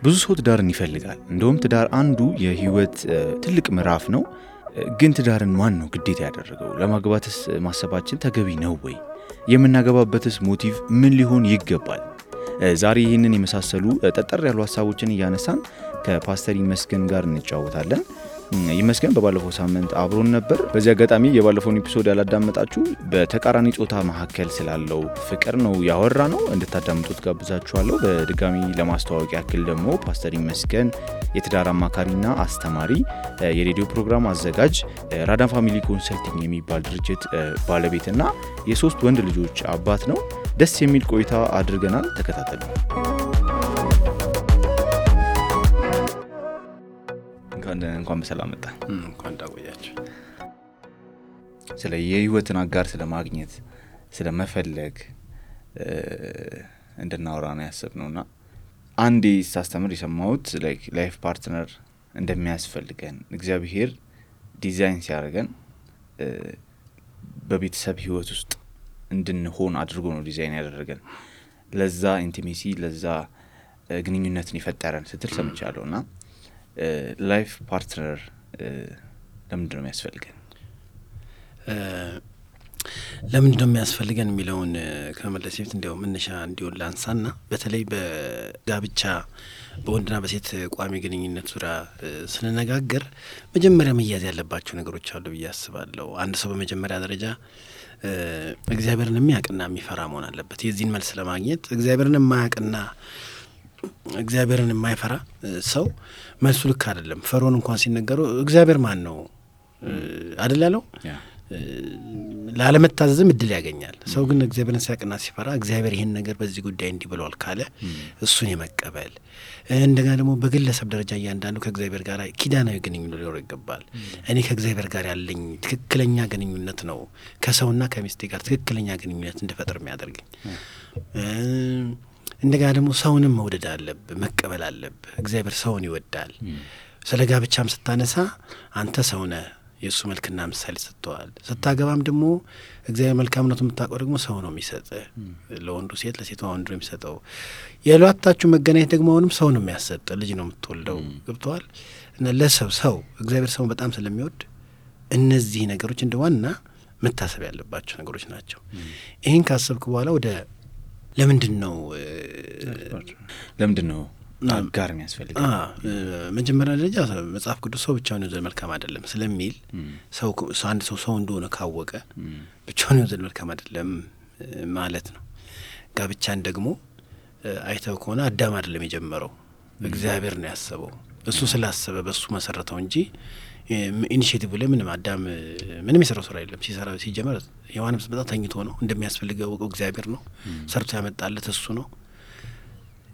ብዙ ሰው ትዳርን ይፈልጋል። እንደውም ትዳር አንዱ የህይወት ትልቅ ምዕራፍ ነው። ግን ትዳርን ማን ነው ግዴታ ያደረገው? ለማግባትስ ማሰባችን ተገቢ ነው ወይ? የምናገባበትስ ሞቲቭ ምን ሊሆን ይገባል? ዛሬ ይህንን የመሳሰሉ ጠጠር ያሉ ሐሳቦችን እያነሳን ከፓስተር ይመስገን ጋር እንጫወታለን። ይመስገን በባለፈው ሳምንት አብሮን ነበር። በዚህ አጋጣሚ የባለፈውን ኤፒሶድ ያላዳመጣችሁ በተቃራኒ ጾታ መካከል ስላለው ፍቅር ነው ያወራነው፣ እንድታዳምጡት ጋብዛችኋለሁ። በድጋሚ ለማስተዋወቅ ያክል ደግሞ ፓስተር ይመስገን የትዳር አማካሪና አስተማሪ፣ የሬዲዮ ፕሮግራም አዘጋጅ፣ ራዳን ፋሚሊ ኮንሰልቲንግ የሚባል ድርጅት ባለቤትና የሶስት ወንድ ልጆች አባት ነው። ደስ የሚል ቆይታ አድርገናል። ተከታተሉ። እንኳን በሰላም መጣ። እንኳን ዳቆያችሁ። ስለ የህይወትን አጋር ስለ ማግኘት ስለ መፈለግ እንድናወራ ነው ያሰብነውና አንዴ ሳስተምር የሰማሁት ላይፍ ፓርትነር እንደሚያስፈልገን እግዚአብሔር ዲዛይን ሲያደርገን በቤተሰብ ህይወት ውስጥ እንድንሆን አድርጎ ነው ዲዛይን ያደረገን። ለዛ ኢንቲሜሲ ለዛ ግንኙነትን ይፈጠራል ስትል ሰምቻለሁና ላይፍ ፓርትነር ለምንድን ነው የሚያስፈልገን? ለምንድን ነው የሚያስፈልገን የሚለውን ከመመለስ በፊት እንዲያው መነሻ እንዲሆን ላንሳና በተለይ በጋብቻ በወንድና በሴት ቋሚ ግንኙነት ዙሪያ ስንነጋገር መጀመሪያ መያዝ ያለባቸው ነገሮች አሉ ብዬ አስባለሁ። አንድ ሰው በመጀመሪያ ደረጃ እግዚአብሔርን የሚያውቅና የሚፈራ መሆን አለበት። የዚህን መልስ ለማግኘት እግዚአብሔርን የማያውቅና እግዚአብሔርን የማይፈራ ሰው መልሱ ልክ አይደለም። ፈርዖን እንኳን ሲነገረው እግዚአብሔር ማን ነው አይደል ያለው? ላለመታዘዝም እድል ያገኛል። ሰው ግን እግዚአብሔርን ሲያውቅና ሲፈራ እግዚአብሔር ይሄን ነገር በዚህ ጉዳይ እንዲህ ብሏል ካለ እሱን የመቀበል እንደገና ደግሞ በግለሰብ ደረጃ እያንዳንዱ ከእግዚአብሔር ጋር ኪዳናዊ ግንኙነት ሊኖር ይገባል። እኔ ከእግዚአብሔር ጋር ያለኝ ትክክለኛ ግንኙነት ነው ከሰውና ከሚስቴ ጋር ትክክለኛ ግንኙነት እንድፈጥር የሚያደርገኝ። እንደገና ደግሞ ሰውንም መውደድ አለብህ፣ መቀበል አለብህ። እግዚአብሔር ሰውን ይወዳል። ስለ ጋብቻም ስታነሳ አንተ ሰው ነህ፣ የእሱ መልክና ምሳሌ ሰጥተዋል። ስታገባም ደግሞ እግዚአብሔር መልካምነቱን የምታውቀው ደግሞ ሰው ነው የሚሰጥህ። ለወንዱ ሴት፣ ለሴቷ ወንዱ ነው የሚሰጠው። የሏታችሁ መገናኘት ደግሞ አሁንም ሰው ነው የሚያሰጥ፣ ልጅ ነው የምትወልደው። ገብተዋል። እና ለሰው እግዚአብሔር ሰውን በጣም ስለሚወድ እነዚህ ነገሮች እንደ ዋና መታሰብ ያለባቸው ነገሮች ናቸው። ይህን ካሰብክ በኋላ ወደ ለምንድን ነው አጋር የሚያስፈልግ? መጀመሪያ ደረጃ መጽሐፍ ቅዱስ ሰው ብቻውን ይወዘድ መልካም አይደለም ስለሚል አንድ ሰው እንደሆነ ካወቀ ብቻውን ይወዘድ መልካም አይደለም ማለት ነው። ጋብቻን ደግሞ አይተው ከሆነ አዳም አይደለም የጀመረው፣ እግዚአብሔር ነው ያሰበው። እሱ ስላሰበ በሱ መሰረተው እንጂ ኢኒሺዬቲቭ ላይ ምንም አዳም ምንም የሰራው ስራ የለም። ሲጀመር ሔዋንም ስትመጣ ተኝቶ ነው። እንደሚያስፈልገው እግዚአብሔር ነው ሰርቶ ያመጣለት፣ እሱ ነው።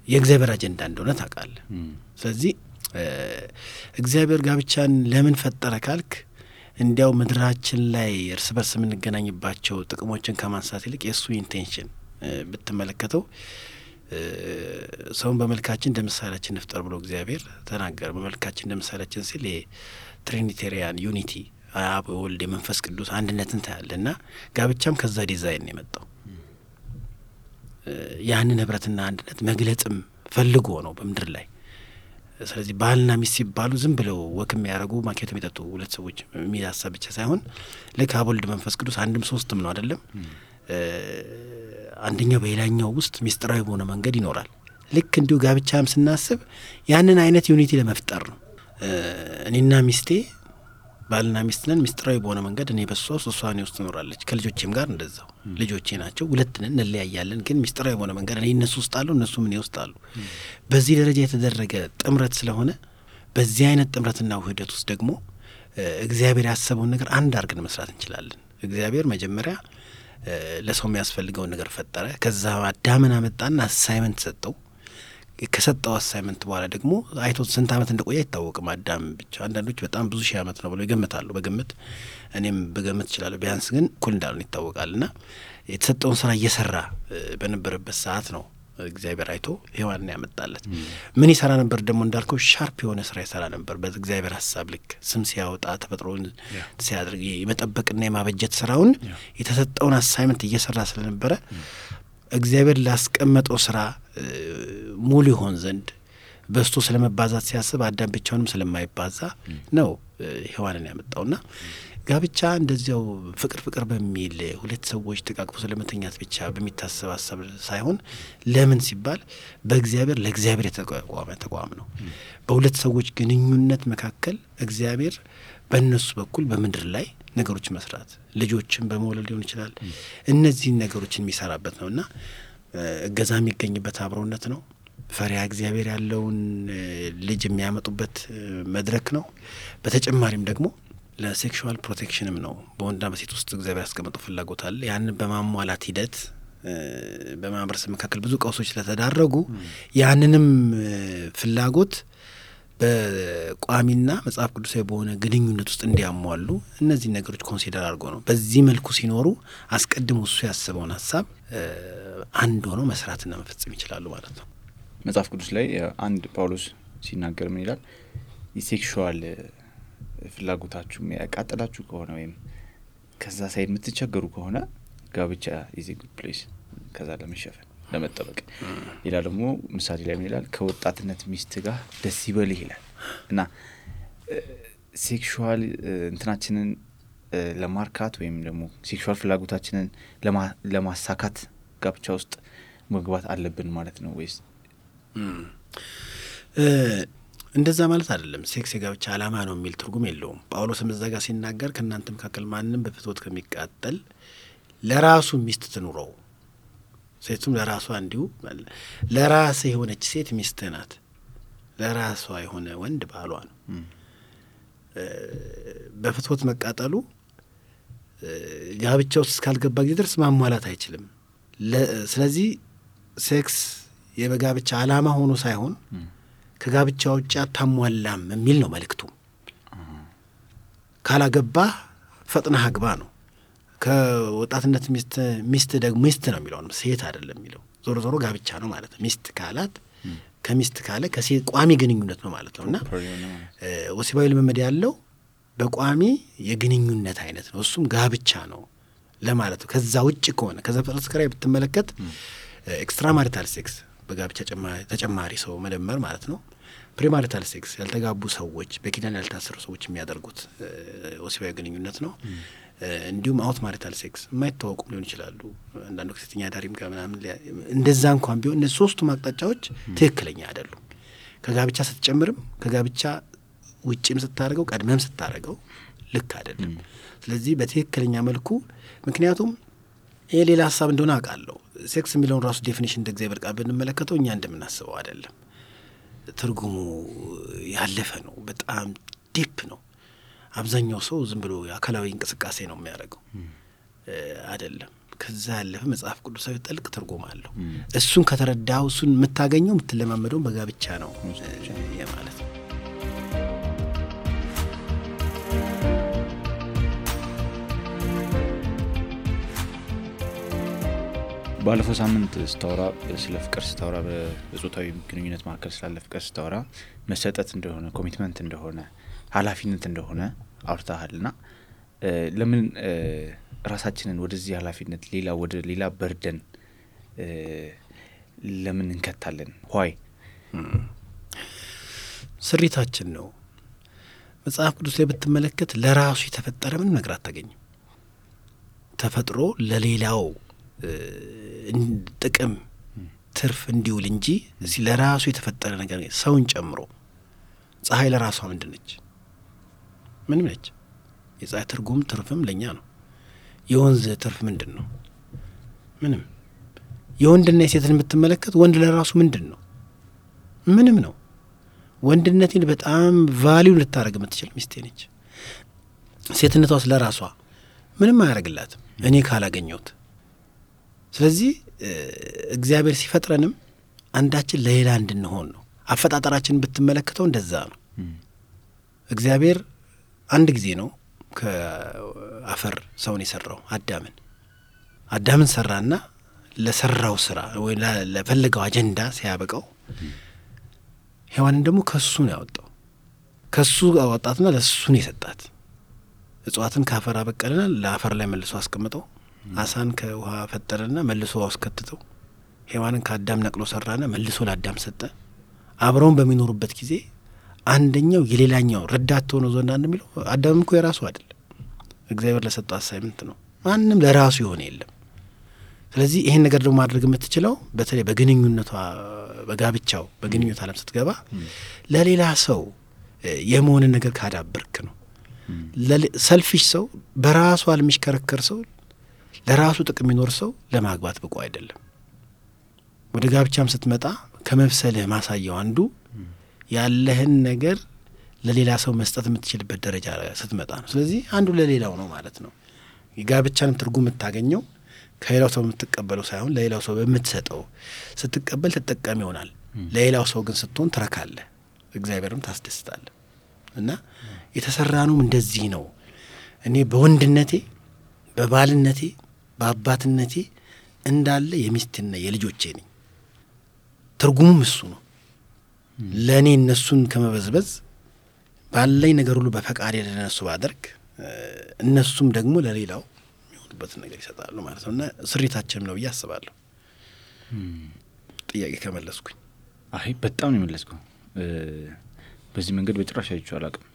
የእግዚአብሔር አጀንዳ እንደሆነ ታውቃለህ። ስለዚህ እግዚአብሔር ጋብቻን ለምን ፈጠረ ካልክ እንዲያው ምድራችን ላይ እርስ በርስ የምንገናኝባቸው ጥቅሞችን ከማንሳት ይልቅ የእሱ ኢንቴንሽን ብትመለከተው ሰውን በመልካችን እንደ ምሳሌያችን እንፍጠር ብሎ እግዚአብሔር ተናገረ። በመልካችን እንደ ምሳሌያችን ሲል ትሪኒቴሪያን ዩኒቲ አብ ወልድ የመንፈስ ቅዱስ አንድነትን ታያለና ጋብቻም ከዛ ዲዛይን ነው የመጣው። ያንን ህብረትና አንድነት መግለጽም ፈልጎ ነው በምድር ላይ። ስለዚህ ባልና ሚስት ሲባሉ ዝም ብለው ወክም ያደርጉ ማኬት የሚጠጡ ሁለት ሰዎች የሚያሳብ ብቻ ሳይሆን ልክ አብ ወልድ መንፈስ ቅዱስ አንድም ሶስትም ነው አይደለም። አንደኛው በሌላኛው ውስጥ ሚስጥራዊ በሆነ መንገድ ይኖራል። ልክ እንዲሁ ጋብቻም ስናስብ ያንን አይነት ዩኒቲ ለመፍጠር ነው። እኔና ሚስቴ ባልና ሚስት ነን። ሚስጥራዊ በሆነ መንገድ እኔ በሷ እሷ እኔ ውስጥ ትኖራለች። ከልጆቼም ጋር እንደዛው ልጆቼ ናቸው፣ ሁለት ነን፣ እንለያያለን። ግን ሚስጥራዊ በሆነ መንገድ እኔ እነሱ ውስጥ አሉ፣ እነሱም እኔ ውስጥ አሉ። በዚህ ደረጃ የተደረገ ጥምረት ስለሆነ በዚህ አይነት ጥምረትና ውህደት ውስጥ ደግሞ እግዚአብሔር ያሰበውን ነገር አንድ አድርገን መስራት እንችላለን። እግዚአብሔር መጀመሪያ ለሰው የሚያስፈልገውን ነገር ፈጠረ። ከዛ አዳምን አመጣና አሳይመንት ሰጠው። ከሰጠው አሳይመንት በኋላ ደግሞ አይቶት ስንት ዓመት እንደቆየ አይታወቅም። አዳም ብቻ አንዳንዶች በጣም ብዙ ሺህ ዓመት ነው ብለው ይገምታሉ። በግምት እኔም በግምት እችላለሁ። ቢያንስ ግን እኩል እንዳልሆነ ይታወቃልና የተሰጠውን ስራ እየሰራ በነበረበት ሰዓት ነው እግዚአብሔር አይቶ ሔዋንን ያመጣለት። ምን ይሰራ ነበር ደግሞ እንዳልከው ሻርፕ የሆነ ስራ ይሰራ ነበር። በእግዚአብሔር ሀሳብ ልክ ስም ሲያወጣ ተፈጥሮን ሲያድርግ የመጠበቅና የማበጀት ስራውን የተሰጠውን አሳይመንት እየሰራ ስለነበረ እግዚአብሔር ላስቀመጠው ስራ ሙሉ ይሆን ዘንድ በስቶ ስለመባዛት ሲያስብ አዳም ብቻውንም ስለማይባዛ ነው ሔዋንን ያመጣውና ጋብቻ እንደዚያው ፍቅር በሚል ሁለት ሰዎች ተቃቅፎ ስለመተኛት ብቻ በሚታሰብ ሀሳብ ሳይሆን ለምን ሲባል በእግዚአብሔር ለእግዚአብሔር የተቋቋመ ተቋም ነው። በሁለት ሰዎች ግንኙነት መካከል እግዚአብሔር በእነሱ በኩል በምድር ላይ ነገሮች መስራት ልጆችን በመውለድ ሊሆን ይችላል። እነዚህን ነገሮችን የሚሰራበት ነውና እገዛ የሚገኝበት አብሮነት ነው። ፈሪሃ እግዚአብሔር ያለውን ልጅ የሚያመጡበት መድረክ ነው። በተጨማሪም ደግሞ ለሴክሹዋል ፕሮቴክሽንም ነው። በወንድና በሴት ውስጥ እግዚአብሔር ያስቀመጠው ፍላጎት አለ። ያንን በማሟላት ሂደት በማህበረሰብ መካከል ብዙ ቀውሶች ስለተዳረጉ ያንንም ፍላጎት በቋሚና መጽሐፍ ቅዱሳዊ በሆነ ግንኙነት ውስጥ እንዲያሟሉ እነዚህ ነገሮች ኮንሲደር አድርጎ ነው። በዚህ መልኩ ሲኖሩ አስቀድሞ እሱ ያስበውን ሀሳብ አንድ ሆነው መስራትና መፈጸም ይችላሉ ማለት ነው። መጽሐፍ ቅዱስ ላይ አንድ ጳውሎስ ሲናገር ምን ይላል? የሴክሹዋል ፍላጎታችሁ ያቃጠላችሁ ከሆነ ወይም ከዛ ሳይድ የምትቸገሩ ከሆነ ጋብቻ ኢዝ ኤ ጉድ ፕሌስ ከዛ ለመሸፈን ለመጠበቅ። ሌላ ደግሞ ምሳሌ ላይ ምን ይላል? ከወጣትነት ሚስት ጋር ደስ ይበልህ ይላል። እና ሴክሹዋል እንትናችንን ለማርካት ወይም ደግሞ ሴክሹዋል ፍላጎታችንን ለማሳካት ጋብቻ ውስጥ መግባት አለብን ማለት ነው ወይስ? እንደዛ ማለት አይደለም። ሴክስ የጋብቻ ዓላማ ነው የሚል ትርጉም የለውም። ጳውሎስም እዛ ጋር ሲናገር ከእናንተ መካከል ማንም በፍትወት ከሚቃጠል ለራሱ ሚስት ትኑረው፣ ሴቱም ለራሷ እንዲሁ። ለራስ የሆነች ሴት ሚስት ናት፣ ለራሷ የሆነ ወንድ ባሏ ነው። በፍትወት መቃጠሉ ጋብቻ ውስጥ እስካልገባ ጊዜ ድረስ ማሟላት አይችልም። ስለዚህ ሴክስ የጋብቻ ዓላማ ሆኖ ሳይሆን ከጋብቻ ውጭ አታሟላም የሚል ነው መልእክቱ። ካላገባህ ፈጥነህ አግባ ነው። ከወጣትነት ሚስት ደግሞ ሚስት ነው የሚለው ነው፣ ሴት አይደለም የሚለው። ዞሮ ጋብቻ ነው ማለት ነው። ሚስት ካላት ከሚስት ካለ ከሴት ቋሚ ግንኙነት ነው ማለት ነው። እና ወሲባዊ ልምምድ ያለው በቋሚ የግንኙነት አይነት ነው፣ እሱም ጋብቻ ነው ለማለት ነው። ከዛ ውጭ ከሆነ ከዛ ፍጥረት ጋር ብትመለከት ኤክስትራ ማሪታል ሴክስ በጋብቻ ተጨማሪ ሰው መደመር ማለት ነው። ፕሪማሪታል ሴክስ ያልተጋቡ ሰዎች በኪዳን ያልታሰሩ ሰዎች የሚያደርጉት ወሲባዊ ግንኙነት ነው። እንዲሁም አውት ማሪታል ሴክስ የማይታወቁም ሊሆን ይችላሉ። አንዳንዱ ከሴተኛ ዳሪም ጋር ምናምን እንደዛ እንኳን ቢሆን እነዚህ ሶስቱ አቅጣጫዎች ትክክለኛ አይደሉም። ከጋብቻ ስትጨምርም ከጋብቻ ውጭም ስታደርገው ቀድመም ስታደርገው ልክ አይደለም። ስለዚህ በትክክለኛ መልኩ ምክንያቱም ይሄ ሌላ ሀሳብ እንደሆነ አውቃለሁ። ሴክስ የሚለውን ራሱ ዴፊኒሽን እንደ እግዚአብሔር ቃል ብንመለከተው እኛ እንደምናስበው አይደለም። ትርጉሙ ያለፈ ነው፣ በጣም ዲፕ ነው። አብዛኛው ሰው ዝም ብሎ አካላዊ እንቅስቃሴ ነው የሚያደርገው አይደለም። ከዛ ያለፈ መጽሐፍ ቅዱሳዊ ጥልቅ ትርጉም አለው። እሱን ከተረዳው እሱን የምታገኘው የምትለማመደው በጋብቻ ነው ማለት ነው። ባለፈው ሳምንት ስታወራ ስለ ፍቅር ስታወራ በጾታዊ ግንኙነት መካከል ስላለ ፍቅር ስታወራ መሰጠት እንደሆነ ኮሚትመንት እንደሆነ ኃላፊነት እንደሆነ አውርታሃልና ለምን ራሳችንን ወደዚህ ኃላፊነት ወደ ሌላ በርደን ለምን እንከታለን? ሆይ ስሪታችን ነው። መጽሐፍ ቅዱስ ላይ ብትመለከት ለራሱ የተፈጠረ ምንም ነገር አታገኝም። ተፈጥሮ ለሌላው ጥቅም ትርፍ እንዲውል እንጂ እዚህ ለራሱ የተፈጠረ ነገር ሰውን ጨምሮ። ፀሐይ ለራሷ ምንድን ነች? ምንም ነች። የፀሐይ ትርጉም ትርፍም ለኛ ነው። የወንዝ ትርፍ ምንድን ነው? ምንም። የወንድና የሴትን የምትመለከት ወንድ ለራሱ ምንድን ነው? ምንም ነው። ወንድነትን በጣም ቫሊዩ ልታደርግ የምትችል ሚስቴ ነች። ሴትነቷስ ለራሷ ምንም አያደርግላትም እኔ ካላገኘሁት። ስለዚህ እግዚአብሔር ሲፈጥረንም አንዳችን ለሌላ እንድንሆን ነው። አፈጣጠራችንን ብትመለከተው እንደዛ ነው። እግዚአብሔር አንድ ጊዜ ነው ከአፈር ሰውን የሰራው። አዳምን ሰራና ለሰራው ስራ ወይ ለፈለገው አጀንዳ ሲያበቃው ሔዋንን ደግሞ ከሱ ነው ያወጣው። ከሱ አወጣትና ለሱ ነው የሰጣት። እጽዋትን ከአፈር አበቀለና ለአፈር ላይ መልሶ አስቀምጠው፣ አሳን ከውሃ ፈጠረና መልሶ አስከትተው፣ ሔዋንን ከአዳም ነቅሎ ሰራና መልሶ ለአዳም ሰጠ። አብረውን በሚኖሩበት ጊዜ አንደኛው የሌላኛው ረዳት ሆኖ ዘንድ እንደሚለው አዳምም እኮ የራሱ አይደለም፣ እግዚአብሔር ለሰጠው አሳይመንት ነው። ማንም ለራሱ የሆነ የለም። ስለዚህ ይሄን ነገር ደግሞ ማድረግ የምትችለው በተለይ በግንኙነቷ በጋብቻው በግንኙነት ዓለም ስትገባ ለሌላ ሰው የመሆንን ነገር ካዳበርክ ነው። ሰልፊሽ ሰው፣ በራሱ የሚሽከረከር ሰው፣ ለራሱ ጥቅም የሚኖር ሰው ለማግባት ብቁ አይደለም። ወደ ጋብቻም ስትመጣ ከመብሰልህ ማሳየው አንዱ ያለህን ነገር ለሌላ ሰው መስጠት የምትችልበት ደረጃ ስትመጣ ነው። ስለዚህ አንዱ ለሌላው ነው ማለት ነው። የጋብቻንም ትርጉም የምታገኘው ከሌላው ሰው የምትቀበለው ሳይሆን ለሌላው ሰው በምትሰጠው ስትቀበል ተጠቃሚ ይሆናል። ለሌላው ሰው ግን ስትሆን ትረካለህ፣ እግዚአብሔርም ታስደስታለህ። እና የተሰራነውም እንደዚህ ነው። እኔ በወንድነቴ በባልነቴ በአባትነቴ እንዳለ የሚስትና የልጆቼ ነኝ። ትርጉሙም እሱ ነው። ለእኔ እነሱን ከመበዝበዝ ባለኝ ነገር ሁሉ በፈቃዴ ለነሱ ባደርግ እነሱም ደግሞ ለሌላው የሚሆኑበትን ነገር ይሰጣሉ ማለት ነው። እና ስሪታችንም ነው ብዬ አስባለሁ። ጥያቄ ከመለስኩኝ። አይ በጣም ነው የመለስከው። በዚህ መንገድ በጭራሽ አይቼው አላውቅም።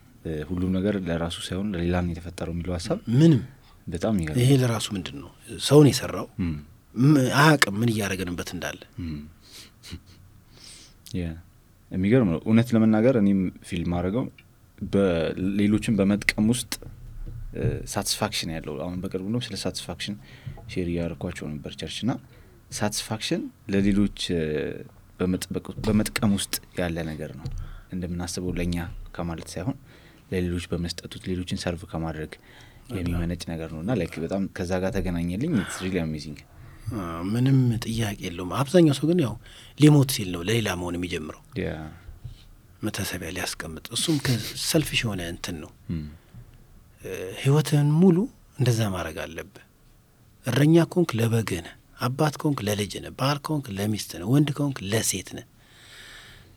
ሁሉም ነገር ለራሱ ሳይሆን ለሌላ ነው የተፈጠረው የሚለው ሀሳብ ምንም በጣም ይገርም። ይሄ ለራሱ ምንድን ነው ሰውን የሰራው አያውቅም ምን እያደረገንበት እንዳለ። የሚገርም ነው እውነት ለመናገር። እኔም ፊልም አድርገው በሌሎችን በመጥቀም ውስጥ ሳቲስፋክሽን ያለው አሁን በቅርቡ ነው ስለ ሳቲስፋክሽን ሼር ያደርኳቸው ነበር ቸርችና ሳቲስፋክሽን ለሌሎች በመጥቀም ውስጥ ያለ ነገር ነው። እንደምናስበው ለኛ ከማለት ሳይሆን ለሌሎች በመስጠቱት ሌሎችን ሰርቭ ከማድረግ የሚመነጭ ነገር ነውና ላይክ በጣም ከዛ ጋር ተገናኘልኝ። ኢትስ ሪሊ አሜዚንግ። ምንም ጥያቄ የለውም። አብዛኛው ሰው ግን ያው ሊሞት ሲል ነው ለሌላ መሆን የሚጀምረው መታሰቢያ ሊያስቀምጥ። እሱም ከሰልፊሽ የሆነ እንትን ነው። ህይወትህን ሙሉ እንደዛ ማድረግ አለብህ። እረኛ ከሆንክ ለበግህ ነህ፣ አባት ከሆንክ ለልጅህ ነህ፣ ባል ከሆንክ ለሚስትህ ነህ፣ ወንድ ከሆንክ ለሴት ነህ።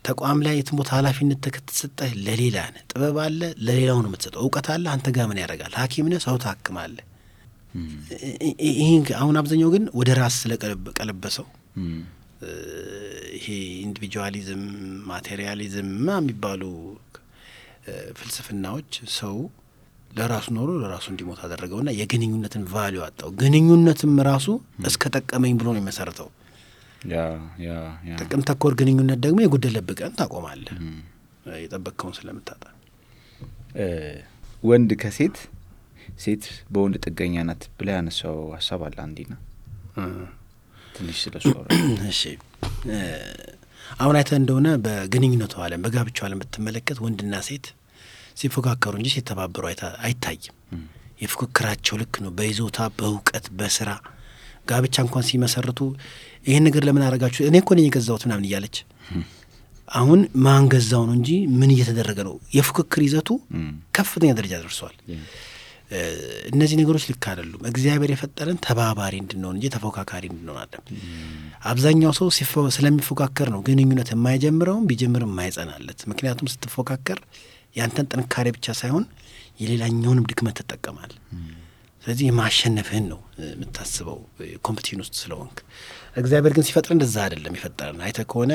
ተቋም ላይ የትም ቦታ ኃላፊነት ተሰጠህ ለሌላ ነህ። ጥበብ አለ ለሌላው ነው የምትሰጠው። እውቀት አለ አንተ ጋር ምን ያደርጋል? ሐኪም ነህ ሰው ታክማለህ። ይሄ አሁን አብዛኛው ግን ወደ ራስ ስለቀለበሰው ይሄ ኢንዲቪጁዋሊዝም ማቴሪያሊዝም የሚባሉ ፍልስፍናዎች ሰው ለራሱ ኖሮ ለራሱ እንዲሞት አደረገውና የግንኙነትን ቫልዩ አጣው። ግንኙነትም ራሱ እስከ ጠቀመኝ ብሎ ነው የሚመሰርተው። ጥቅም ተኮር ግንኙነት ደግሞ የጎደለብህ ቀን ታቆማለህ የጠበቅከውን ስለምታጣ። ወንድ ከሴት ሴት በወንድ ጥገኛ ናት ብላ ያነሳው ሀሳብ አለ አንዲና ትንሽ ስለሱ። እሺ አሁን አይተህ እንደሆነ በግንኙነቱ ዓለም በጋብቻው ዓለም ብትመለከት ወንድና ሴት ሲፎካከሩ እንጂ ሲተባበሩ አይታይም። የፉክክራቸው ልክ ነው በይዞታ በእውቀት በስራ ጋብቻ እንኳን ሲመሰርቱ ይሄን ነገር ለምን አረጋችሁ እኔ እኮ ነኝ የገዛሁት ምናምን እያለች አሁን ማን ገዛው ነው እንጂ ምን እየተደረገ ነው። የፉክክር ይዘቱ ከፍተኛ ደረጃ ደርሷል። እነዚህ ነገሮች ልክ አይደሉም። እግዚአብሔር የፈጠረን ተባባሪ እንድንሆን እንጂ ተፎካካሪ እንድንሆን አይደለም። አብዛኛው ሰው ስለሚፎካከር ነው ግንኙነት የማይጀምረውም ቢጀምርም የማይጸናለት። ምክንያቱም ስትፎካከር ያንተን ጥንካሬ ብቻ ሳይሆን የሌላኛውንም ድክመት ትጠቀማል። ስለዚህ የማሸነፍህን ነው የምታስበው ኮምፒቲሽን ውስጥ ስለሆንክ። እግዚአብሔር ግን ሲፈጥር እንደዛ አይደለም የፈጠረን። አይተህ ከሆነ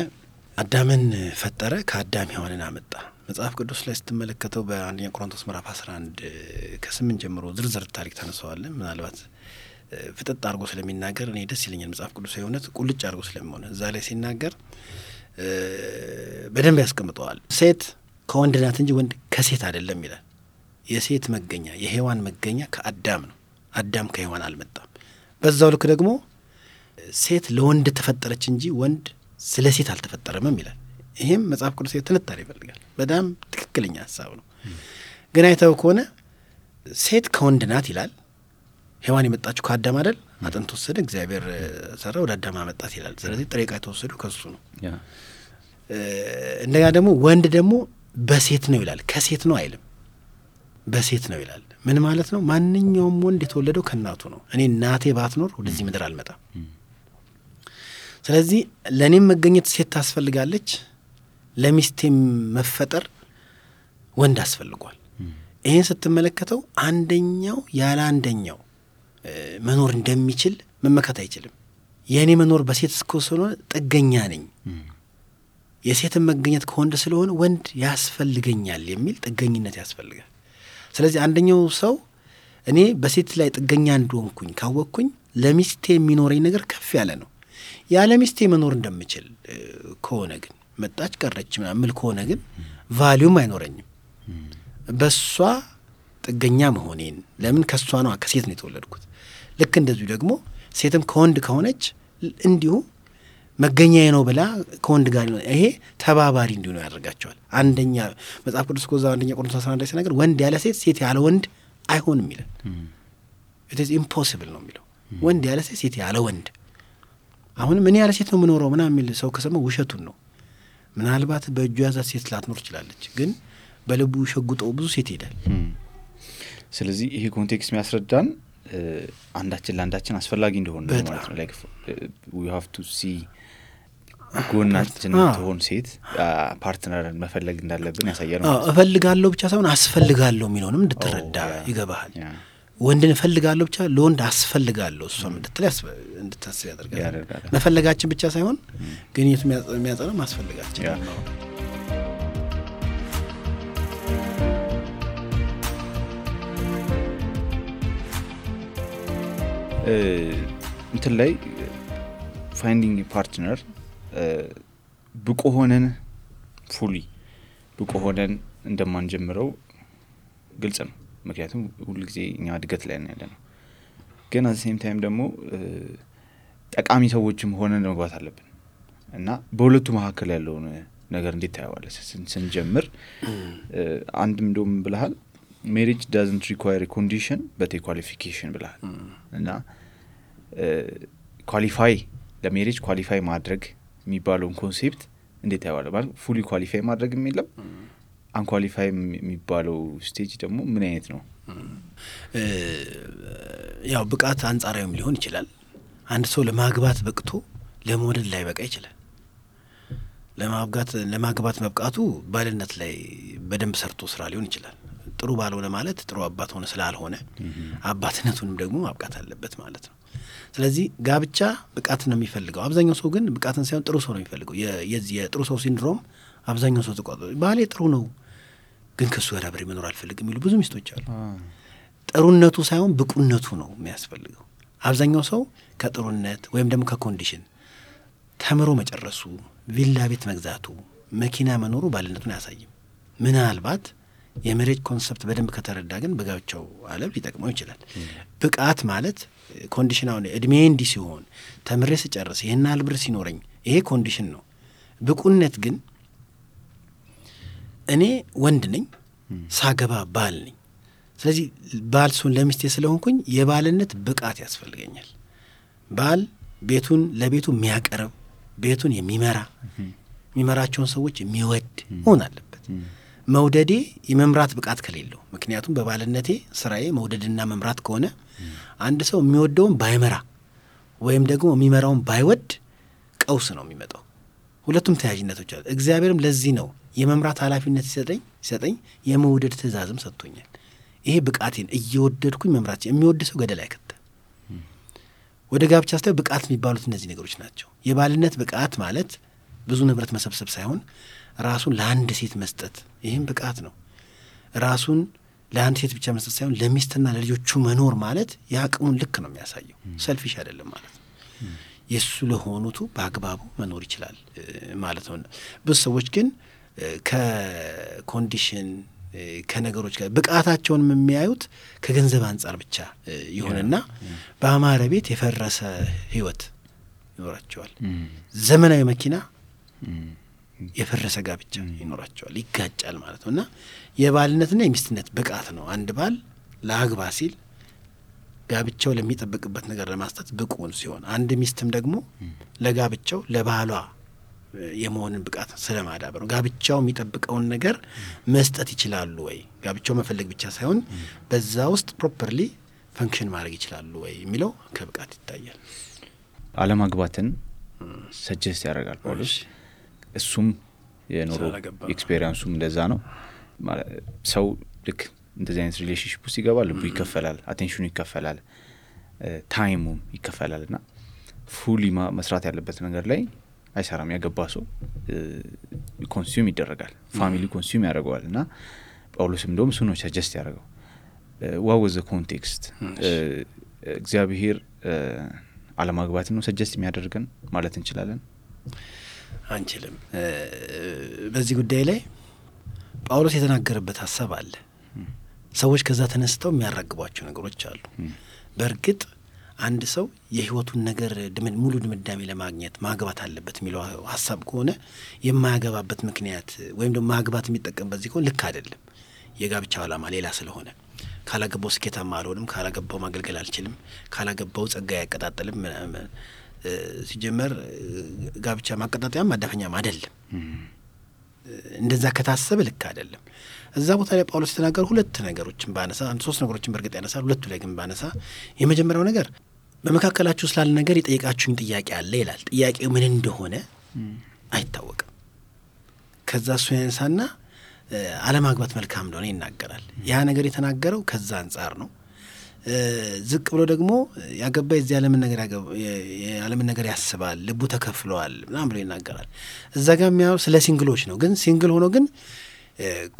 አዳምን ፈጠረ፣ ከአዳም ሔዋንን አመጣ። መጽሐፍ ቅዱስ ላይ ስትመለከተው በአንደኛ ቆሮንቶስ ምዕራፍ 11 ከ8 ጀምሮ ዝርዝር ታሪክ ተነሳዋለን። ምናልባት ፍጥጥ አድርጎ ስለሚናገር እኔ ደስ ይለኛል። መጽሐፍ ቅዱስ የእውነት ቁልጭ አድርጎ ስለሚሆነ እዛ ላይ ሲናገር በደንብ ያስቀምጠዋል። ሴት ከወንድ ናት እንጂ ወንድ ከሴት አይደለም ይላል። የሴት መገኛ የሔዋን መገኛ ከአዳም ነው። አዳም ከሔዋን አልመጣም። በዛው ልክ ደግሞ ሴት ለወንድ ተፈጠረች እንጂ ወንድ ስለ ሴት አልተፈጠረምም ይላል። ይሄም መጽሐፍ ቅዱስ ትንታኔ ይፈልጋል። በጣም ትክክለኛ ሀሳብ ነው። ግን አይተው ከሆነ ሴት ከወንድ ናት ይላል። ሔዋን የመጣችው ከአዳም አይደል? አጥንት ወሰደ እግዚአብሔር ሰራ ወደ አዳም አመጣት ይላል። ስለዚህ ጥሬ ዕቃ የተወሰደው ከሱ ነው። እንደገና ደግሞ ወንድ ደግሞ በሴት ነው ይላል። ከሴት ነው አይልም፣ በሴት ነው ይላል። ምን ማለት ነው? ማንኛውም ወንድ የተወለደው ከእናቱ ነው። እኔ እናቴ ባትኖር ወደዚህ ምድር አልመጣም። ስለዚህ ለእኔም መገኘት ሴት ታስፈልጋለች፣ ለሚስቴም መፈጠር ወንድ አስፈልጓል። ይህን ስትመለከተው አንደኛው ያለ አንደኛው መኖር እንደሚችል መመከት አይችልም። የእኔ መኖር በሴት እስከሆነ ጥገኛ ነኝ፣ የሴትን መገኘት ከወንድ ስለሆነ ወንድ ያስፈልገኛል የሚል ጥገኝነት ያስፈልጋል። ስለዚህ አንደኛው ሰው እኔ በሴት ላይ ጥገኛ እንደሆንኩኝ ካወቅኩኝ ለሚስቴ የሚኖረኝ ነገር ከፍ ያለ ነው። ያለ ሚስቴ መኖር እንደምችል ከሆነ ግን መጣች ቀረች ምናምን ከሆነ ግን ቫሊዩም አይኖረኝም። በሷ ጥገኛ መሆኔን ለምን ከሷ ነው ከሴት ነው የተወለድኩት። ልክ እንደዚሁ ደግሞ ሴትም ከወንድ ከሆነች እንዲሁ መገኛዬ ነው ብላ ከወንድ ጋር ይሄ ተባባሪ እንዲሆኑ ያደርጋቸዋል። አንደኛ መጽሐፍ ቅዱስ ኮዛ አንደኛ ቆሮንቶስ 11 ሲናገር ወንድ ያለ ሴት ሴት ያለ ወንድ አይሆንም ይላል። it is impossible ነው የሚለው። ወንድ ያለ ሴት ሴት ያለ ወንድ። አሁንም እኔ ያለ ሴት ነው የምኖረው ምናምን የሚል ሰው ከሰማ ውሸቱን ነው። ምናልባት በእጁ ያዛት ሴት ላትኖር ትችላለች፣ ግን በልቡ ሸጉጠው ብዙ ሴት ይሄዳል። ስለዚህ ይሄ ኮንቴክስት የሚያስረዳን አንዳችን ለአንዳችን አስፈላጊ እንደሆነ ነው ማለት ነው። like we have to see ጎናችን ትሆን ሴት ፓርትነርን መፈለግ እንዳለብን ያሳያል ማለት ነው። እፈልጋለሁ ብቻ ሳይሆን አስፈልጋለሁ የሚለውንም እንድትረዳ ይገባሃል። ወንድን እፈልጋለሁ ብቻ ለወንድ አስፈልጋለሁ እሷም እንድታስብ ያደርጋል። መፈለጋችን ብቻ ሳይሆን ግን የሚያጸናው ማስፈልጋችን ነው። እንትን ላይ ፋይንዲንግ ፓርትነር ብቁ ሆነን ፉሊ ብቁ ሆነን እንደማንጀምረው ግልጽ ነው። ምክንያቱም ሁሉ ጊዜ እኛ እድገት ላይ ነው ያለነው። ግን at the same time ደግሞ ጠቃሚ ሰዎችም ሆነን መግባት አለብን እና በሁለቱ መካከል ያለውን ነገር እንዴት ታያዋለህ? ስንጀምር አንድም እንደውም ብለሃል marriage doesn't require a condition but a qualification ብለሃል እና ኳሊፋይ ለሜሪጅ ኳሊፋይ ማድረግ የሚባለውን ኮንሴፕት እንዴት ታያዋለህ? ማለት ፉሊ ኳሊፋይ ማድረግ የሚለው አንኳሊፋይ የሚባለው ስቴጅ ደግሞ ምን አይነት ነው? ያው ብቃት አንጻራዊም ሊሆን ይችላል። አንድ ሰው ለማግባት በቅቶ ለመውለድ ላይ በቃ ይችላል። ለማግባት መብቃቱ ባልነት ላይ በደንብ ሰርቶ ስራ ሊሆን ይችላል። ጥሩ ባልሆነ ማለት ጥሩ አባት ሆነ ስላልሆነ አባትነቱንም ደግሞ ማብቃት አለበት ማለት ነው። ስለዚህ ጋብቻ ብቃት ነው የሚፈልገው። አብዛኛው ሰው ግን ብቃትን ሳይሆን ጥሩ ሰው ነው የሚፈልገው። የዚህ የጥሩ ሰው ሲንድሮም አብዛኛው ሰው ተቋጥሮ ባሌ ጥሩ ነው ግን ከሱ ጋር አብሬ መኖር አልፈልግም የሚሉ ብዙ ሚስቶች አሉ። ጥሩነቱ ሳይሆን ብቁነቱ ነው የሚያስፈልገው። አብዛኛው ሰው ከጥሩነት ወይም ደግሞ ከኮንዲሽን ተምሮ መጨረሱ፣ ቪላ ቤት መግዛቱ፣ መኪና መኖሩ ባልነቱን አያሳይም። ምናልባት የሜሬጅ ኮንሰፕት በደንብ ከተረዳ ግን በጋብቻው ዓለም ሊጠቅመው ይችላል። ብቃት ማለት ኮንዲሽን አሁን እድሜ እንዲህ ሲሆን ተምሬ ስጨርስ ይሄን ያህል ብር ሲኖረኝ ይሄ ኮንዲሽን ነው። ብቁነት ግን እኔ ወንድ ነኝ ሳገባ ባል ነኝ። ስለዚህ ባል ስሆን ለሚስቴ ስለሆንኩኝ የባልነት ብቃት ያስፈልገኛል። ባል ቤቱን ለቤቱ የሚያቀርብ ቤቱን የሚመራቸውን ሰዎች የሚወድ መሆን አለበት። መውደዴ የመምራት ብቃት ከሌለው፣ ምክንያቱም በባልነቴ ስራዬ መውደድና መምራት ከሆነ አንድ ሰው የሚወደውን ባይመራ ወይም ደግሞ የሚመራውን ባይወድ ቀውስ ነው የሚመጣው። ሁለቱም ተያያዥነቶች አሉ። እግዚአብሔርም ለዚህ ነው የመምራት ኃላፊነት ሲሰጠኝ የመውደድ ትእዛዝም ሰጥቶኛል። ይሄ ብቃቴን እየወደድኩኝ መምራት የሚወድ ሰው ገደል አይከተም። ወደ ጋብቻ ስታይ ብቃት የሚባሉት እነዚህ ነገሮች ናቸው። የባልነት ብቃት ማለት ብዙ ንብረት መሰብሰብ ሳይሆን ራሱን ለአንድ ሴት መስጠት፣ ይህም ብቃት ነው። ራሱን ለአንድ ሴት ብቻ መስጠት ሳይሆን ለሚስትና ለልጆቹ መኖር ማለት የአቅሙን ልክ ነው የሚያሳየው። ሰልፊሽ አይደለም ማለት ነው። የእሱ ለሆኑቱ በአግባቡ መኖር ይችላል ማለት ነው። ብዙ ሰዎች ግን ከኮንዲሽን ከነገሮች ጋር ብቃታቸውን የሚያዩት ከገንዘብ አንጻር ብቻ ይሆንና በአማረ ቤት የፈረሰ ህይወት ይኖራቸዋል። ዘመናዊ መኪና የፈረሰ ጋብቻ ይኖራቸዋል፣ ይጋጫል ማለት ነው። እና የባልነትና የሚስትነት ብቃት ነው። አንድ ባል ለአግባ ሲል ጋብቻው ለሚጠበቅበት ነገር ለማስጠት ብቁን ሲሆን፣ አንድ ሚስትም ደግሞ ለጋብቻው ለባሏ የመሆንን ብቃት ስለማዳበር ነው። ጋብቻው የሚጠብቀውን ነገር መስጠት ይችላሉ ወይ፣ ጋብቻው መፈለግ ብቻ ሳይሆን በዛ ውስጥ ፕሮፐርሊ ፈንክሽን ማድረግ ይችላሉ ወይ የሚለው ከብቃት ይታያል። አለማግባትን ሰጀስት ያደርጋል ጳውሎስ። እሱም የኖሮ ኤክስፔሪየንሱም እንደዛ ነው። ሰው ልክ እንደዚህ አይነት ሪሌሽንሺፕ ውስጥ ይገባል፣ ልቡ ይከፈላል፣ አቴንሽኑ ይከፈላል፣ ታይሙም ይከፈላልና ፉሊ መስራት ያለበት ነገር ላይ አይሰራም። ያገባ ሰው ኮንሱም ይደረጋል፣ ፋሚሊ ኮንሱም ያደርገዋል። እና ጳውሎስም እንደውም እሱ ነው ሰጀስት ያደርገው። what was the context? እግዚአብሔር አለማግባት ነው ሰጀስት የሚያደርገን ማለት እንችላለን? አንችልም። በዚህ ጉዳይ ላይ ጳውሎስ የተናገረበት ሐሳብ አለ። ሰዎች ከዛ ተነስተው የሚያራግቧቸው ነገሮች አሉ። በእርግጥ አንድ ሰው የህይወቱን ነገር ሙሉ ድምዳሜ ለማግኘት ማግባት አለበት የሚለው ሐሳብ ከሆነ የማያገባበት ምክንያት ወይም ደግሞ ማግባት የሚጠቀምበት ሲሆን ልክ አይደለም። የጋብቻው ዓላማ ሌላ ስለሆነ ካላገባው ስኬታማ አልሆንም፣ ካላገባው ማገልገል አልችልም፣ ካላገባው ጸጋ ያቀጣጥልም። ሲጀመር ጋብቻ ማቀጣጣያም ማዳፈኛም አይደለም። እንደዛ ከታሰበ ልክ አይደለም። እዛ ቦታ ላይ ጳውሎስ የተናገሩ ሁለት ነገሮችን ባነሳ፣ ሶስት ነገሮችን በእርግጥ ያነሳል፣ ሁለቱ ላይ ግን ባነሳ፣ የመጀመሪያው ነገር በመካከላችሁ ስላለ ነገር የጠየቃችሁኝ ጥያቄ አለ ይላል። ጥያቄው ምን እንደሆነ አይታወቅም። ከዛ እሱ ያነሳና አለማግባት መልካም እንደሆነ ይናገራል። ያ ነገር የተናገረው ከዛ አንጻር ነው። ዝቅ ብሎ ደግሞ ያገባ የዚህ ዓለምን ነገር ያስባል፣ ልቡ ተከፍሏል ምናምን ብሎ ይናገራል። እዛ ጋር የሚያው ስለ ሲንግሎች ነው። ግን ሲንግል ሆኖ ግን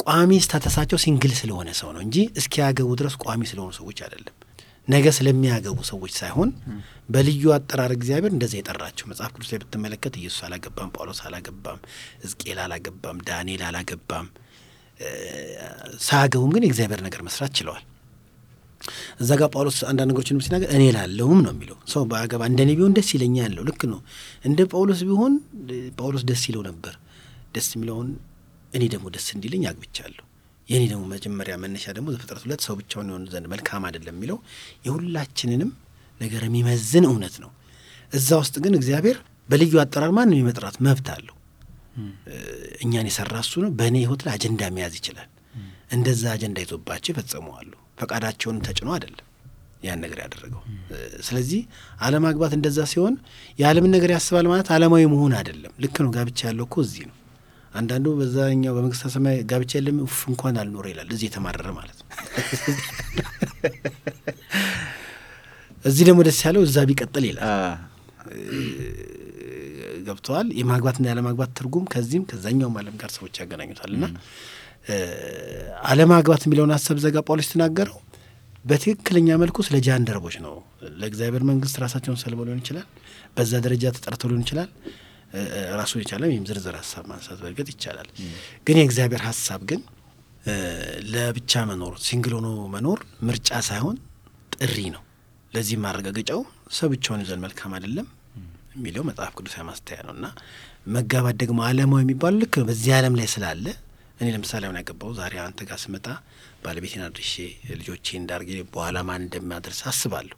ቋሚ ስታተሳቸው ሲንግል ስለሆነ ሰው ነው እንጂ እስኪያገቡ ድረስ ቋሚ ስለሆኑ ሰዎች አይደለም። ነገ ስለሚያገቡ ሰዎች ሳይሆን በልዩ አጠራር እግዚአብሔር እንደዛ የጠራቸው። መጽሐፍ ቅዱስ ላይ ብትመለከት ኢየሱስ አላገባም፣ ጳውሎስ አላገባም፣ ሕዝቅኤል አላገባም፣ ዳንኤል አላገባም። ሳያገቡም ግን የእግዚአብሔር ነገር መስራት ችለዋል። እዛ ጋር ጳውሎስ አንዳንድ ነገሮችን ሲናገር እኔ ላለሁም ነው የሚለው። ሰው ባያገባ እንደኔ ቢሆን ደስ ይለኛል ያለው ልክ ነው። እንደ ጳውሎስ ቢሆን ጳውሎስ ደስ ይለው ነበር። ደስ የሚለውን እኔ ደግሞ ደስ እንዲለኝ አግብቻለሁ። የኔ ደግሞ መጀመሪያ መነሻ ደግሞ ዘፍጥረት 2 ሰው ብቻውን ይሆን ዘንድ መልካም አይደለም የሚለው የሁላችንንም ነገር የሚመዝን እውነት ነው። እዛ ውስጥ ግን እግዚአብሔር በልዩ አጠራር ማንም የመጥራት መብት አለው። እኛን የሰራ እሱ ነው። በእኔ ህይወት ላይ አጀንዳ መያዝ ይችላል። እንደዛ አጀንዳ ይዞባቸው ይፈጽመዋሉ። ፈቃዳቸውን ተጭኖ አይደለም ያን ነገር ያደረገው። ስለዚህ አለማግባት እንደዛ ሲሆን የዓለምን ነገር ያስባል ማለት ዓለማዊ መሆን አይደለም። ልክ ነው። ጋብቻ ያለው እኮ እዚህ ነው። አንዳንዱ በዛኛው በመንግስተ ሰማይ ጋብቻ የለም እንኳን አልኖረ ይላል። እዚህ የተማረረ ማለት ነው። እዚህ ደግሞ ደስ ያለው እዛ ቢቀጥል ይላል። ገብተዋል። የማግባትና ያለማግባት ትርጉም ከዚህም ከዛኛውም ዓለም ጋር ሰዎች ያገናኙታልና አለማግባት የሚለውን ሀሳብ ዘጋ ጳውሎስ ተናገረው በትክክለኛ መልኩ ስለ ጃንደረቦች ነው። ለእግዚአብሔር መንግስት ራሳቸውን ሰልበው ሊሆን ይችላል። በዛ ደረጃ ተጠርተው ሊሆን ይችላል። ራሱን የቻለ ወይም ዝርዝር ሀሳብ ማንሳት በእርግጥ ይቻላል። ግን የእግዚአብሔር ሀሳብ ግን ለብቻ መኖር፣ ሲንግል ሆኖ መኖር ምርጫ ሳይሆን ጥሪ ነው። ለዚህ ማረጋገጫው ሰው ብቻውን ይዘን መልካም አይደለም የሚለው መጽሐፍ ቅዱሳዊ ማስተያ ነውና መጋባት ደግሞ ዓለማዊ የሚባለው ልክ በዚህ ዓለም ላይ ስላለ እኔ ለምሳሌ አሁን ያገባው ዛሬ አንተ ጋር ስመጣ ባለቤቴን አድርሼ ልጆቼን እንዳርጌ በኋላ ማን እንደማደርስ አስባለሁ።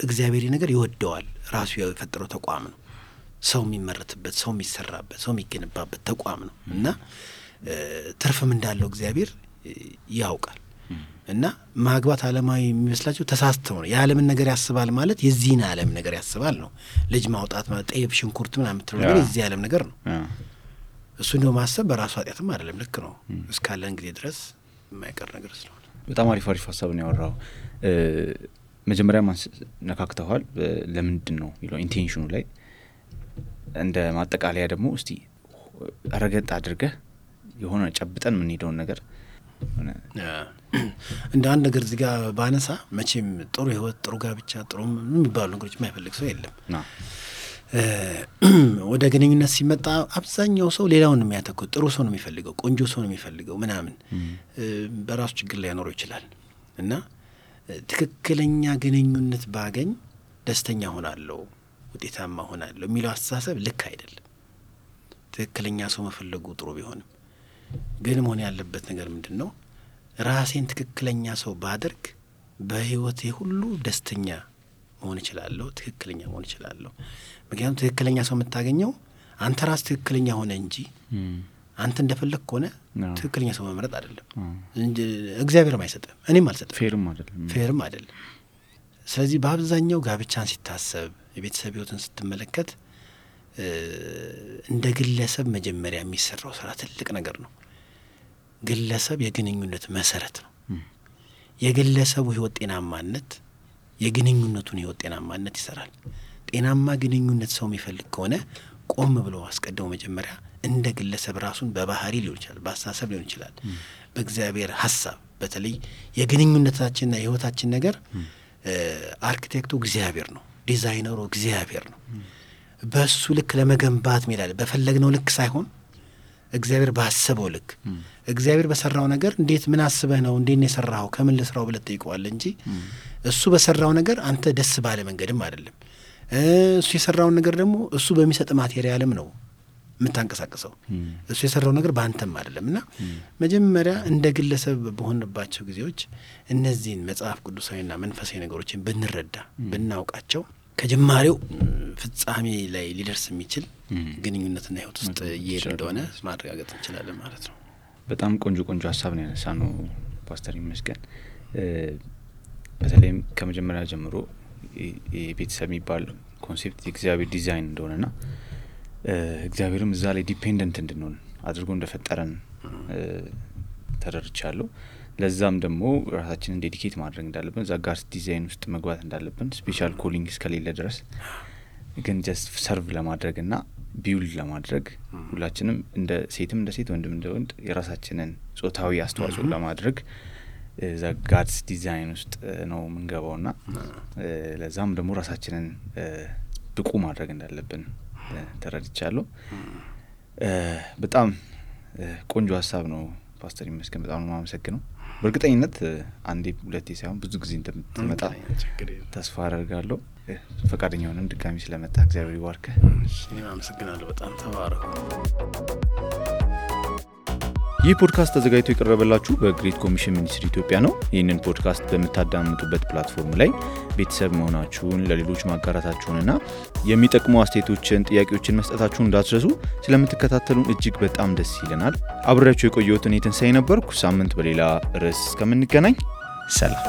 እግዚአብሔር ነገር ይወደዋል። ራሱ የፈጠረው ተቋም ነው። ሰው የሚመረትበት፣ ሰው የሚሰራበት፣ ሰው የሚገነባበት ተቋም ነው እና ትርፍም እንዳለው እግዚአብሔር ያውቃል። እና ማግባት ዓለማዊ የሚመስላቸው ተሳስተው ነው። የዓለምን ነገር ያስባል ማለት የዚህን ዓለም ነገር ያስባል ነው። ልጅ ማውጣት ማለት ጤፍ፣ ሽንኩርት ምናምን የምትለው ነገር የዚህ ዓለም ነገር ነው። እሱ እንደው ማሰብ በራሱ ኃጢአትም አይደለም። ልክ ነው። እስካለን ጊዜ ድረስ የማይቀር ነገር ስለሆነ በጣም አሪፍ ሀሳብ ነው ያወራው። መጀመሪያ ነካክተዋል። ለምንድን ነው የሚለው ኢንቴንሽኑ ላይ እንደ ማጠቃለያ ደግሞ እስቲ ረገጥ አድርገህ የሆነ ጨብጠን የምንሄደውን ነገር እንደ አንድ ነገር እዚህ ጋር ባነሳ መቼም ጥሩ ህይወት፣ ጥሩ ጋብቻ፣ ጥሩ የሚባሉ ነገሮች የማይፈልግ ሰው የለም። ወደ ግንኙነት ሲመጣ አብዛኛው ሰው ሌላውን ነው የሚያተኩት። ጥሩ ሰው ነው የሚፈልገው፣ ቆንጆ ሰው ነው የሚፈልገው ምናምን። በራሱ ችግር ላይ ያኖረው ይችላል እና ትክክለኛ ግንኙነት ባገኝ ደስተኛ ሆናለሁ፣ ውጤታማ ሆናለሁ የሚለው አስተሳሰብ ልክ አይደለም። ትክክለኛ ሰው መፈለጉ ጥሩ ቢሆንም ግን መሆን ያለበት ነገር ምንድን ነው? ራሴን ትክክለኛ ሰው ባደርግ በህይወቴ ሁሉ ደስተኛ መሆን እችላለሁ፣ ትክክለኛ መሆን እችላለሁ። ምክንያቱም ትክክለኛ ሰው የምታገኘው አንተ ራስ ትክክለኛ ሆነ እንጂ አንተ እንደፈለግ ከሆነ ትክክለኛ ሰው መምረጥ አይደለም። እግዚአብሔርም አይሰጥም፣ እኔም አልሰጥም፣ ፌርም አይደለም። ስለዚህ በአብዛኛው ጋብቻን ሲታሰብ፣ የቤተሰብ ህይወትን ስትመለከት እንደ ግለሰብ መጀመሪያ የሚሰራው ስራ ትልቅ ነገር ነው። ግለሰብ የግንኙነት መሰረት ነው። የግለሰቡ ህይወት ጤናማነት የግንኙነቱን ህይወት ጤናማነት ይሰራል። ጤናማ ግንኙነት ሰው የሚፈልግ ከሆነ ቆም ብሎ አስቀድሞ መጀመሪያ እንደ ግለሰብ ራሱን በባህሪ ሊሆን ይችላል፣ በአስተሳሰብ ሊሆን ይችላል፣ በእግዚአብሔር ሀሳብ በተለይ የግንኙነታችንና የህይወታችን ነገር አርኪቴክቱ እግዚአብሔር ነው፣ ዲዛይነሩ እግዚአብሔር ነው። በሱ ልክ ለመገንባት ሜዳለ በፈለግነው ልክ ሳይሆን እግዚአብሔር ባሰበው ልክ እግዚአብሔር በሰራው ነገር እንዴት ምን አስበህ ነው እንዴት ነው የሰራው ከምን ልስራው ብለህ ጠይቀዋለህ እንጂ እሱ በሰራው ነገር አንተ ደስ ባለ መንገድም አይደለም። እሱ የሰራውን ነገር ደግሞ እሱ በሚሰጥ ማቴሪያልም ነው የምታንቀሳቅሰው። እሱ የሰራው ነገር በአንተም አይደለም እና መጀመሪያ እንደ ግለሰብ በሆንባቸው ጊዜዎች እነዚህን መጽሐፍ ቅዱሳዊና መንፈሳዊ ነገሮችን ብንረዳ ብናውቃቸው ከጅማሬው ፍጻሜ ላይ ሊደርስ የሚችል ግንኙነትና ህይወት ውስጥ እየሄድ እንደሆነ ማረጋገጥ እንችላለን ማለት ነው። በጣም ቆንጆ ሀሳብ ነው ያነሳነው ፓስተር ይመስገን። በተለይም ከመጀመሪያ ጀምሮ የቤተሰብ የሚባል ኮንሴፕት የእግዚአብሔር ዲዛይን እንደሆነና እግዚአብሔርም እዛ ላይ ዲፔንደንት እንድንሆን አድርጎ እንደፈጠረን ተረድቻለሁ። ለዛም ደግሞ ራሳችንን ዴዲኬት ማድረግ እንዳለብን እዛ ጋር ዲዛይን ውስጥ መግባት እንዳለብን ስፔሻል ኮሊንግ እስከሌለ ድረስ ግን ጀስት ሰርቭ ለማድረግና ቢውል ለማድረግ ሁላችንም እንደ ሴትም እንደ ሴት ወንድም እንደ ወንድ የራሳችንን ጾታዊ አስተዋጽኦ ለማድረግ እዛ ጋድስ ዲዛይን ውስጥ ነው የምንገባውና ለዛም ደግሞ ራሳችንን ብቁ ማድረግ እንዳለብን ተረድቻለሁ። በጣም ቆንጆ ሀሳብ ነው ፓስተር ይመስገን። በጣም ነው የማመሰግነው። በእርግጠኝነት አንዴ ሁለቴ ሳይሆን ብዙ ጊዜ እንደምትመጣ ተስፋ አደርጋለሁ። ፈቃደኛ ሆነም ድጋሚ ስለመጣ እግዚአብሔር ይባርክህ። እኔም አመሰግናለሁ። በጣም ተባረኩ። ይህ ፖድካስት ተዘጋጅቶ የቀረበላችሁ በግሬት ኮሚሽን ሚኒስትሪ ኢትዮጵያ ነው። ይህንን ፖድካስት በምታዳምጡበት ፕላትፎርም ላይ ቤተሰብ መሆናችሁን ለሌሎች ማጋራታችሁንና የሚጠቅሙ አስተያየቶችን፣ ጥያቄዎችን መስጠታችሁን እንዳትረሱ። ስለምትከታተሉን እጅግ በጣም ደስ ይለናል። አብሬያችሁ የቆየሁት እኔ ትንሳኤ ነበርኩ። ሳምንት በሌላ ርዕስ እስከምንገናኝ ሰላም።